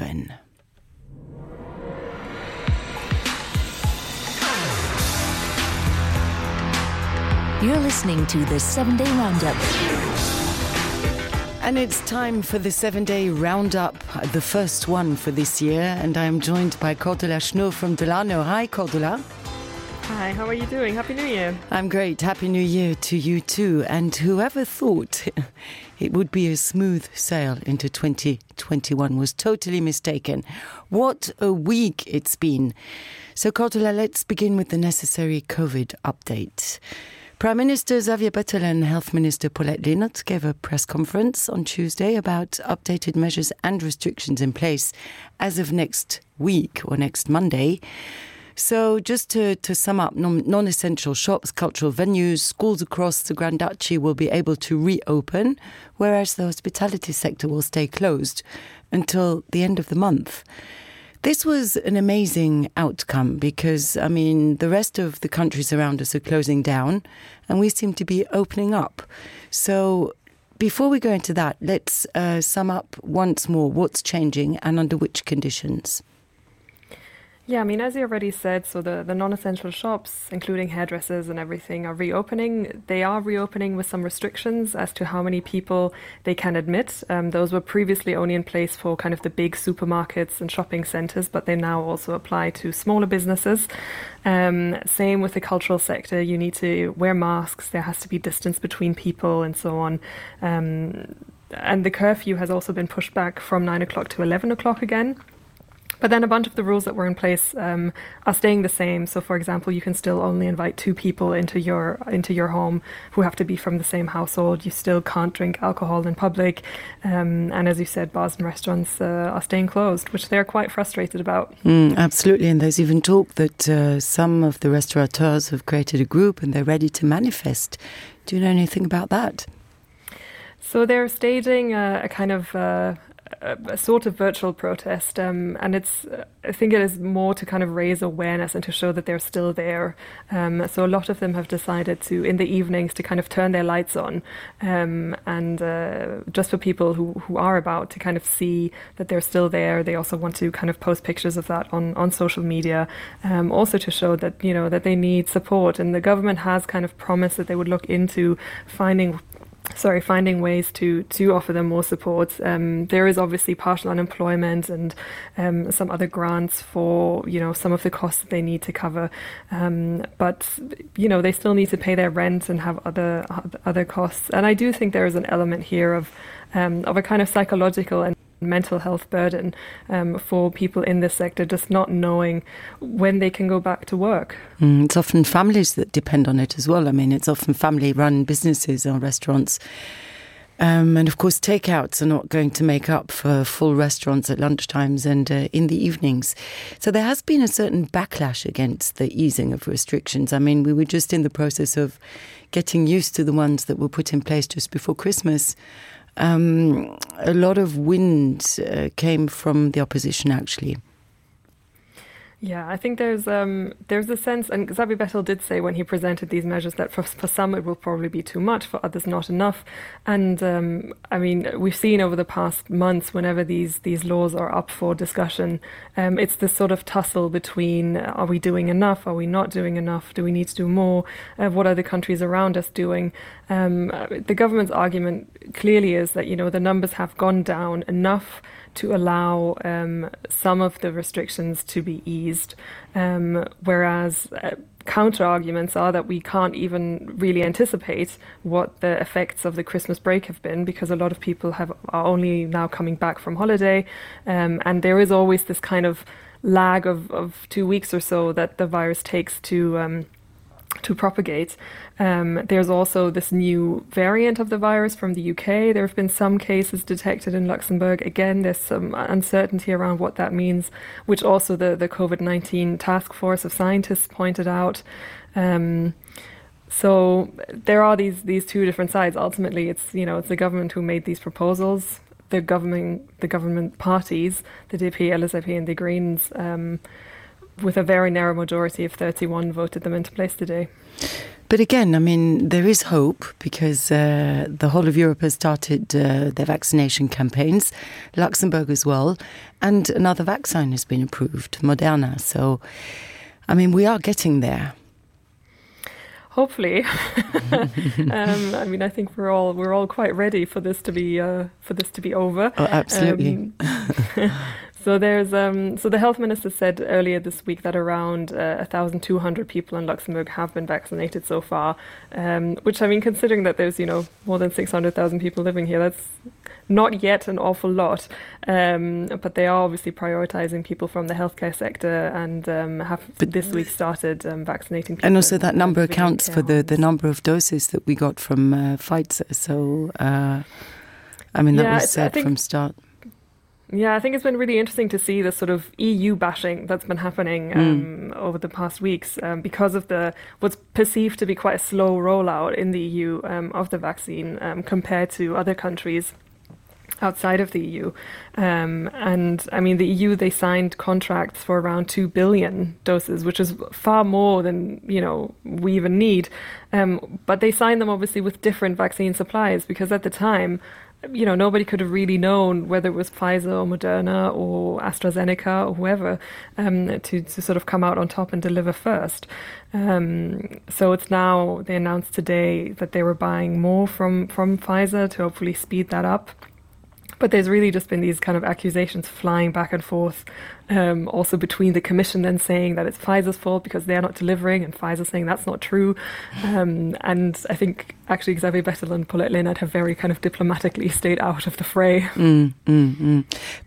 7. You're listening to the 7-Day Roundup. And it's time for the 7-Day Roundup, the first one for this year. And I'm joined by Cordula Schnurr from Delano. Hi, Cordula. Hi, how are you doing? Happy New Year. I'm great. Happy New Year to you too. And whoever thought it would be a smooth sail into 2021 was totally mistaken. What a week it's been. So, Cordula, let's begin with the necessary COVID update. Prime Minister Xavier Bettel and Health Minister Paulette Linnert gave a press conference on Tuesday about updated measures and restrictions in place as of next week or next Monday. So just to sum up, non-essential shops, cultural venues, schools across the Grand Duchy will be able to reopen, whereas the hospitality sector will stay closed until the end of the month. This was an amazing outcome because, the rest of the countries around us are closing down and we seem to be opening up. So before we go into that, let's sum up once more what's changing and under which conditions. Yeah, as you already said, so the non-essential shops, including hairdressers and everything, are reopening. They are reopening with some restrictions as to how many people they can admit. Those were previously only in place for kind of the big supermarkets and shopping centres, but they now also apply to smaller businesses. Same with the cultural sector. You need to wear masks. There has to be distance between people and so on. And the curfew has also been pushed back from 9 o'clock to 11 o'clock again. But then a bunch of the rules that were in place are staying the same. So, for example, you can still only invite 2 people into your home who have to be from the same household. You still can't drink alcohol in public. And as you said, bars and restaurants are staying closed, which they're quite frustrated about. Absolutely. And there's even talk that some of the restaurateurs have created a group and they're ready to manifest. Do you know anything about that? So they're staging a kind of a sort of virtual protest, and I think it is more to kind of raise awareness and to show that they're still there. So a lot of them have decided to, in the evenings, to kind of turn their lights on, and just for people who are about to kind of see that they're still there. They also want to kind of post pictures of that on social media, also to show that, that they need support. And the government has kind of promised that they would look into finding ways to offer them more support. There is obviously partial unemployment and some other grants for, some of the costs that they need to cover. But, they still need to pay their rent and have other costs. And I do think there is an element here of a kind of psychological and mental health burden for people in this sector, just not knowing when they can go back to work. It's often families that depend on it as well. It's often family-run businesses or restaurants. And of course, takeouts are not going to make up for full restaurants at lunchtimes and in the evenings. So there has been a certain backlash against the easing of restrictions. We were just in the process of getting used to the ones that were put in place just before Christmas. A lot of wind came from the opposition, actually. Yeah, I think there's a sense, and Xavier Bettel did say when he presented these measures that for some it will probably be too much, for others not enough. And we've seen over the past months, whenever these laws are up for discussion, it's this sort of tussle between, are we doing enough? Are we not doing enough? Do we need to do more? What are the countries around us doing? The government's argument clearly is that, the numbers have gone down enough to allow some of the restrictions to be eased, whereas counter-arguments are that we can't even really anticipate what the effects of the Christmas break have been, because a lot of people are only now coming back from holiday, and there is always this kind of lag of 2 weeks or so that the virus takes to propagate. There's also this new variant of the virus from the UK. There have been some cases detected in Luxembourg. Again, there's some uncertainty around what that means, which also the COVID-19 task force of scientists pointed out. So there are these two different sides. Ultimately, it's the government who made these proposals. The government parties, the DP, LSAP and the Greens, with a very narrow majority of 31 voted them into place today. But again, I mean, there is hope because the whole of Europe has started their vaccination campaigns, Luxembourg as well, and another vaccine has been approved, Moderna. So, I mean, we are getting there. Hopefully, I mean, I think we're all quite ready for this to be over. Oh, absolutely. So the health minister said earlier this week that around 1,200 people in Luxembourg have been vaccinated so far, which, I mean, considering that there's more than 600,000 people living here, that's not yet an awful lot. But they are obviously prioritizing people from the healthcare sector and have this week started vaccinating people. And also that number accounts for the number of doses that we got from Pfizer. So, I mean, that was said from start. Yeah, I think it's been really interesting to see the sort of EU bashing that's been happening over the past weeks because of what's perceived to be quite a slow rollout in the EU of the vaccine compared to other countries outside of the EU. And I mean, the EU, they signed contracts for around 2 billion doses, which is far more than, we even need. But they signed them obviously with different vaccine suppliers because at the time, nobody could have really known whether it was Pfizer or Moderna or AstraZeneca or whoever to sort of come out on top and deliver first. So it's now, they announced today that they were buying more from Pfizer to hopefully speed that up. But there's really just been these kind of accusations flying back and forth, also between the Commission then saying that it's Pfizer's fault because they're not delivering, and Pfizer saying that's not true. And I think actually Xavier Bettel and Paulette Leonard have very kind of diplomatically stayed out of the fray.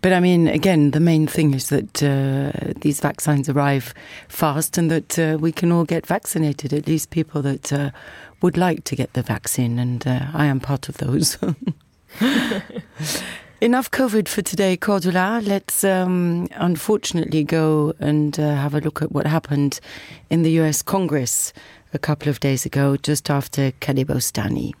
But I mean, again, the main thing is that these vaccines arrive fast and that we can all get vaccinated, at least people that would like to get the vaccine. And I am part of those. Enough COVID for today, Cordula. Let's unfortunately go and have a look at what happened in the US Congress a couple of days ago, just after Khaled Bostani.